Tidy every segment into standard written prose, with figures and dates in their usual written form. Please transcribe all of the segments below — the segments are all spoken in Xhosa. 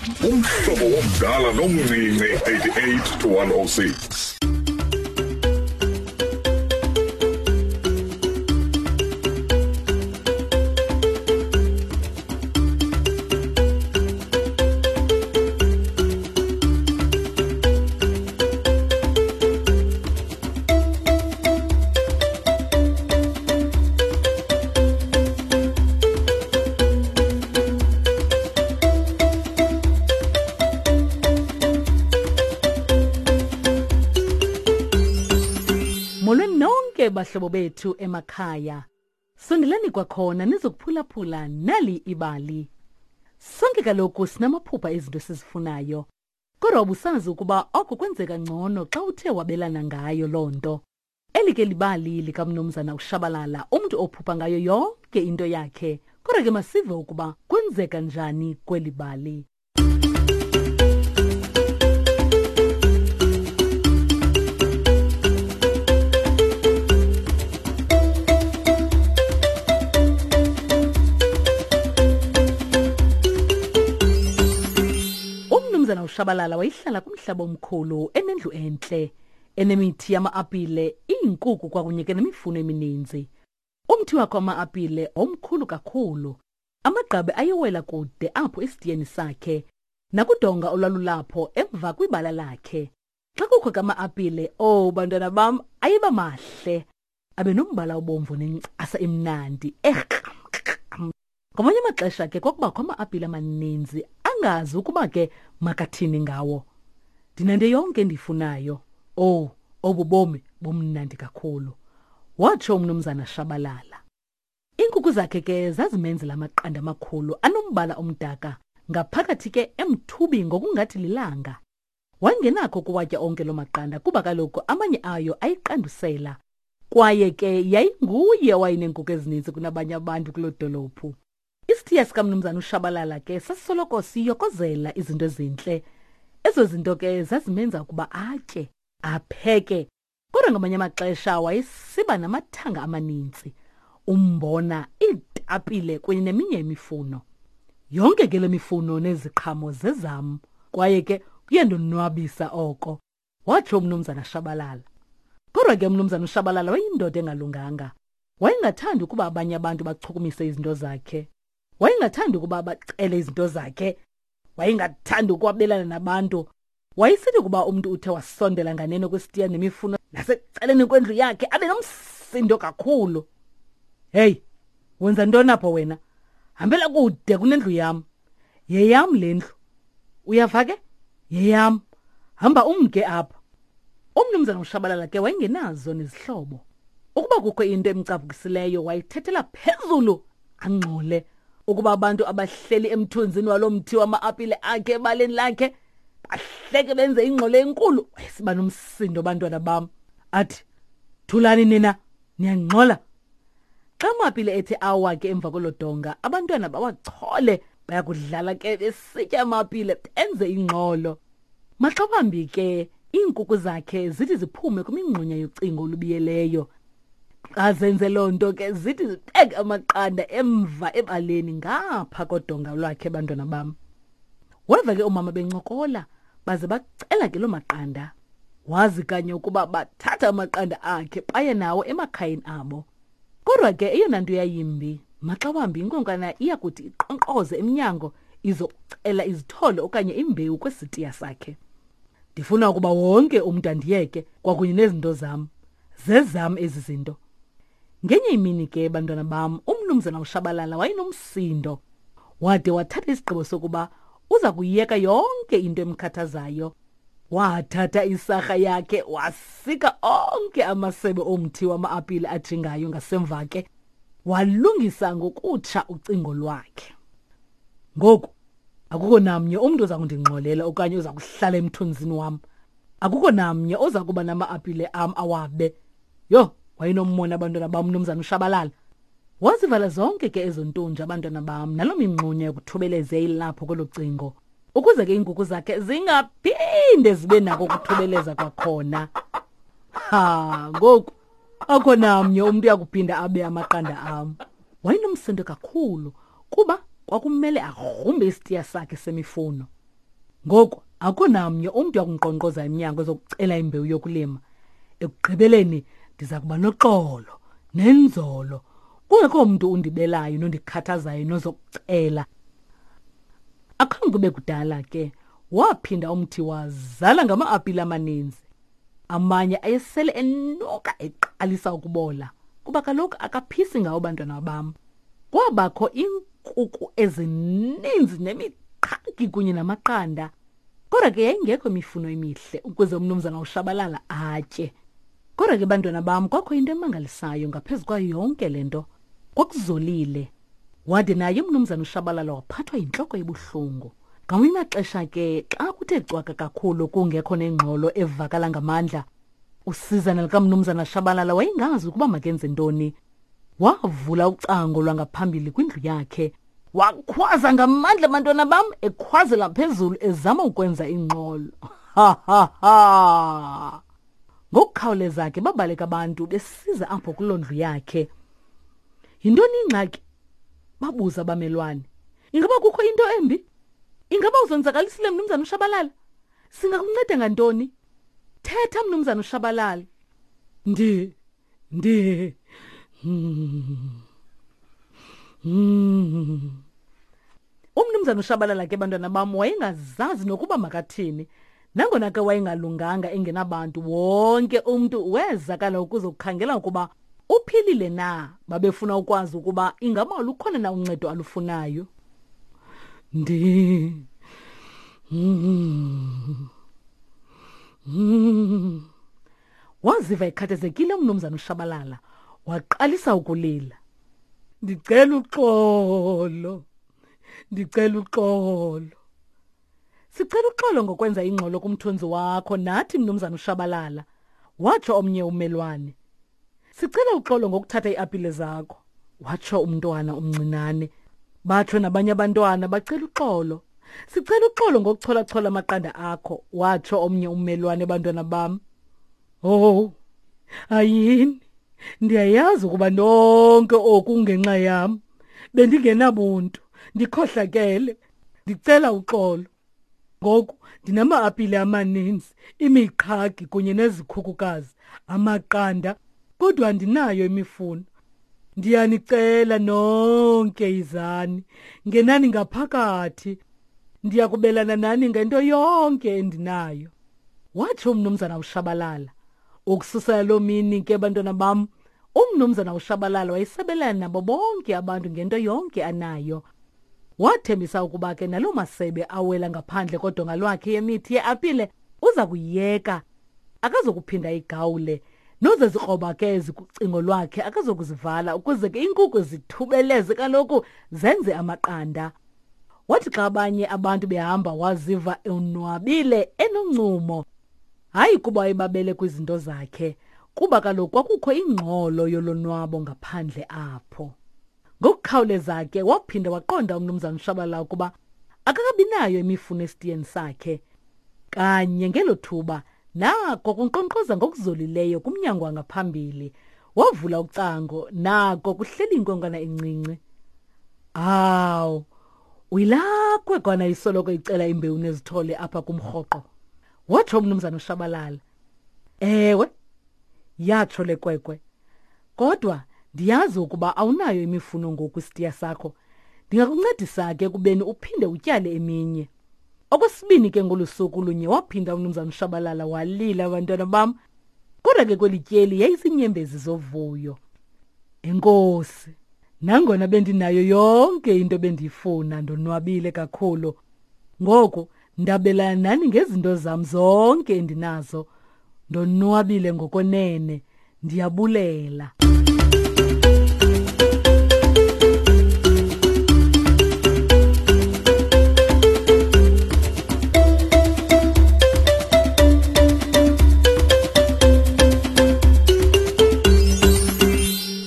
Umhlobo womdala nomncinci 88 to 106. Molweni nonke bahlobo bethu emakhaya. Sondelani kwakhona nizokuphulaphula nali ibali. Sonke kaloku sinamaphupha ezinto esizifunayo. Kodwa ubusazi ukuba oko kwenzeka ngcono xa uthe wabelana ngayo loo nto. Eli ke libali likamnumzana uShabalala, umntu ophupha ngayo yonke into yakhe. Kodwa ke masive ukuba kwenzeka njani kweli bali. Umnumzana uShabalala wayehlala kumhlaba omkhulu enendlu entle enemithi yama-apile, iinkuku kwakunye ke nemifuno emininzi. Umthi wakhe wama-apile omkhulu kakhulu. Amagqabi ayewela kude apho esitiyeni sakhe nakudonga olwalulapho emva kwibala lakhe. Xa kukho ke ama-apile, oh bantwana bam, ayeba mahle. Abe nombala obomvu nencasa emnandi ekram. Ngamanye amaxesha ke kwakubakho ama-apile amaninzi angazi ukuba ke makathini ngawo. Ndinento yonke endiyifunayo. Owu, obu bomi bumnandi kakhulu, watsho umnumzana Shabalala. Iinkukhu zakhe ke zazimenzela amaqanda amakhulu anombala omdaka, ngaphakathi ke emthubi ngokungathi lilanga. Wayengenakho ukuwatya onke loo maqanda kuba kaloku amanye ayo ayiqandusela. Kwaye ke yayinguye owayeneenkukhu ezininzi kunabanye abantu kuloo dolophu. Isithiya sikamnumzana uShabalala ke sasisoloko siyokozela izinto ezintle. Ezo zinto ke zazimenza ukuba atye, apheke. Kodwa ngamanye amaxesha wayesiba namathanga amaninzi, umbona, iitapile kunye neminye imifuno. Yonke ke le mifuno neziqhamo zezam, kwaye ke kuyandonwabisa oko, watsho umnumzana Shabalala. Kodwa ke umnumzana uShabalala wayeyindoda engalunganga. Wayengathandi ukuba abanye abantu bachukumise izinto zakhe. Wayengathandi ukuba bacele izinto zakhe. Wayengathandi ukwabelana nabantu. Wayesithi ukuba umntu uthe wasondela nganeno kwesitiya nemifuno nasecaleni kwendlu yakhe abe nomsindo kakhulu. Hey, wenza ntoni apho wena? Hambela kude kunendlu yam. Yeyam le ndlu. Uyava ke? Yeyam. Hamba umke apha. Umnumzana uShabalala ke wayengenazo nezihlobo. Ukuba kukho into emcaphukisileyo wayithethela phezulu angxole. Ukuba abantu abahleli emthunzini walo mthi wama-apile akhe ebaleni lakhe bahleke benze ingxolo enkulu, wayesiba nomsindo bantwana bam. Athi, thulani nina, niyangxola. Xa amapile ethe awa ke emva kwelo donga, abantwana bawachole bayakudlala ke besitya amapile benze ingxolo. Maxa wambi ke iinkuku zakhe zithi ziphume kwimingxunya yocingo olubiyeleyo. Xa zenze loo nto ke zithi zibeke amaqanda emva ebaleni ngapha kodonga lwakhe bantwana bam. Weva ke oomama bencokola baze bacela ke loo maqanda. Wazi kanye ukuba bathatha amaqanda akhe baye nawo emakhayeni abo. Kodwa ke eyona nto yayimbi, maxa wambi inkonkana iya kuthi iqonkqoze emnyango izokucela izithole okanye imbewu kwesitiya sakhe. Ndifuna ukuba wonke umntu andiyeke kwakunye nezinto zam. Zezam ezi zinto. Ngenye imini ke bantwana bam, umnumzana uShabalala wayenomsindo. Wade wathatha isigqibo sokuba uza kuyiyeka yonke into emkhathazayo. Wathatha isarha yakhe wasika onke amasebe omthi wama-apile ajingayo ngasemva ke, walungisa ngokutsha ucingo lwakhe. Ngoku akukho namnye umntu oza kundingxolela okanye oza kuhlala emthunzini wam. Akukho namnye oza kuba nama-apile am awabe. Yho, wayenommona abantwana bam umnumzana uShabalala. Wazivala zonke ke ezo ntunja abantwana bam naloo mingxunya yokuthubeleza ilapho kwelo cingo ukuze ke iinkukhu zakhe zingaphinde zibe nako ukuthubeleza kwakhona. Ha, ngoku akho namnye umntu uyakuphinda abe amaqanda am. Wayenomsindo kakhulu kuba kwakumele agrumbe isitiya sakhe semifuno. Ngoku akukho namnye umntu uyakundinkqonkqoza emnyango ezokucela imbewu yokulima. Ekugqibeleni ndiza kuba noxolo nenzolo, kungekho mntu undibelayo nondikhathazayo nozokucela. Akhange kube kudala ke waphinda umthi wazala ngama-apile amaninzi. Amanye ayesele enuka eqalisa ukubola kuba kaloku akaphisi ngawo bantwana bam. Kwabakho iinkuku ezininzi nemiqhagi kunye namaqanda. Kodwa ke yayingekho imifuno emihle ukuze umnumzana uShabalala atye. Kodwa ke bantwana bam kwakho into emangalisayo ngaphezu kwayo yonke le nto. Kwakuzolile. Wade naye umnumzana uShabalala waphathwa yintloko ebuhlungu. Ngamanye amaxesha ke xa kuthe cwaka kakhulu kungekho nengxolo evakala ngamandla, usizana likamnumzana Shabalala wayengazi ukuba makenze ntoni. Wavula ucango lwangaphambili kwindlu yakhe. Wakhwaza ngamandla bantwana bam, ekhwazela phezulu ezama ukwenza ingxolo. Ha ha ha! Ngokukhawuleza ke babaleka abantu besiza apho kuloo ndlu yakhe. Yintoni ingxaki? Babuza abamelwane. Ingaba kukho into embi? Ingaba uzonzakalisile mnumzana uShabalala? Singakunceda ngantoni? Thetha mnumzana uShabalala. Ndi ndi Umnumzana uShabalala ke bantwana bam wayengazazi nokuba makathini. Nangona ke wayengalunganga engenabantu, wonke umntu wezakala ukuzokukhangela ukuba uphilile na. Babefuna ukwazi ukuba ingaba lukhona na uncedo alufunayo. Ndi Waziva ekhathazekile umnumzana uShabalala, waqalisa ukulila. Ndicela uxolo, ndicela uxolo. Sicela uxolo ngokwenza ingxolo kumthunzi wakho nathi mnumzana uShabalala, watsho omnye ummelwane. Sicela uxolo ngokuthatha iiapile zakho, watsho umntwana omncinane. Batsho nabanye abantwana bacela uxolo. Sicela uxolo ngokucholachola amaqanda akho, watsho omnye ummelwane bantwana bam. Oh, ayini, ndiyayazi ukuba nonke oku kungenxa yam. Bendingenabuntu, ndikhohlakele. Ndicela uxolo. Ngoku ndinama-apile amaninzi, imiqhagi kunye nezikhukukazi, amaqanda, kodwa andinayo imifuno. Ndiyanicela nonke yizani, ngenani ngaphakathi. Ndiya kubelana nani ngento yonke endinayo. Watsho umnumzana uShabalala. Ukususela loo mini ke bantwana bam, umnumzana uShabalala wayesabelana nabo bonke abantu ngento yonke anayo. Wathembisa ukuba ke naloo masebe awela ngaphandle kodonga lwakhe yemithi yeapile uza kuyiyeka, akazokuphinda igawule. Nozezikroba ke ezikucingo lwakhe akazokuzivala ukuze ke iinkukhu zithubeleze kaloku zenze amaqanda. Wathi xa abanye abantu behamba waziva onwabile enoncumo. Hayi kuba wayebabele kwizinto zakhe, kuba kaloku kwakukho ingxolo yolonwabo ngaphandle apho. Ngokukhawuleza ke waphinda waqonda uMnumzana Shabalala ukuba akakabinayo imifuno esitiyeni sakhe. Kanye ngelo thuba nako kunkqonkqoza ngokuzolileyo kumnyango wangaphambili. Wavula ucango nako kuhleli inkwenkwana encinci. Awu, uyilaa kwekwana isoloko icela imbewu nezithole apha kumrhoqo, watsho uMnumzana uShabalala. Ewe, yatsho le kwekwe. Kodwa ndiyazi ukuba awunayo imifuno ngoku isitiya sakho. Ndingakuncedisa ke ekubeni uphinde utyale eminye. Okwesibini ke ngolu suku lunye waphinda uMnumzana uShabalala walila bantwana bam. Kodwa ke kweli tyeli yayizinyembezi zovuyo. Enkosi, nangona bendinayo yonke into bendiyifuna ndonwabile kakhulu. Ngoku ndabelana nani ngezinto zam zonke endinazo. Ndonwabile ngokwenene. Ndiyabulela.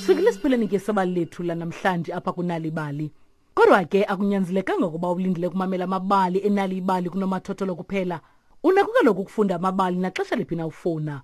Sifikile esiphelweni ke sebali lethu lanamhlanje apha kunalibali. Kodwa ke akunyanzelekanga ukuba ulindele ukumamela amabali enali ibali kunomathotholo kuphela. Unako kaloku ukufunda amabali naxesha liphi na ufuna.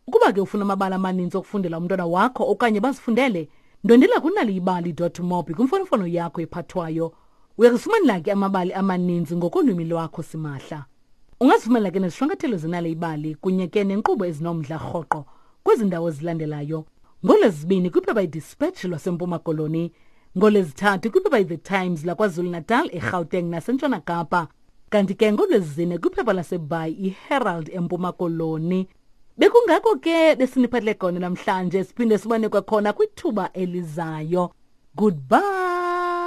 Ukuba ke ufuna amabali amaninzi okufundela umntwana wakho okanye bazifundele, ndwendela kunaliyibali.mobi kwimfonomfono yakho ephathwayo. Uyakufumanela ke amabali amaninzi ngokolwimi lwakho simahla. Ungazifumanela ke nezishwankathelo zenale ibali kunye ke nenkqubo ezinomdla rhoqo kwezi ndawo zilandelayo. NgoLwezibini kwiphepha iDispatch lwaseMpuma Koloni, ngoLwezithathu kwiphepha iThe Times laKwaZulu-Natal, eGauteng naseNtshona Kapa, kanti ke ngoLwezine kwiphepha laseBhayi iHerald eMpuma Koloni. Bekungako ke besiniphathele kona namhlanje, siphinde sibone kwakhona kwithuba elizayo. Goodbye.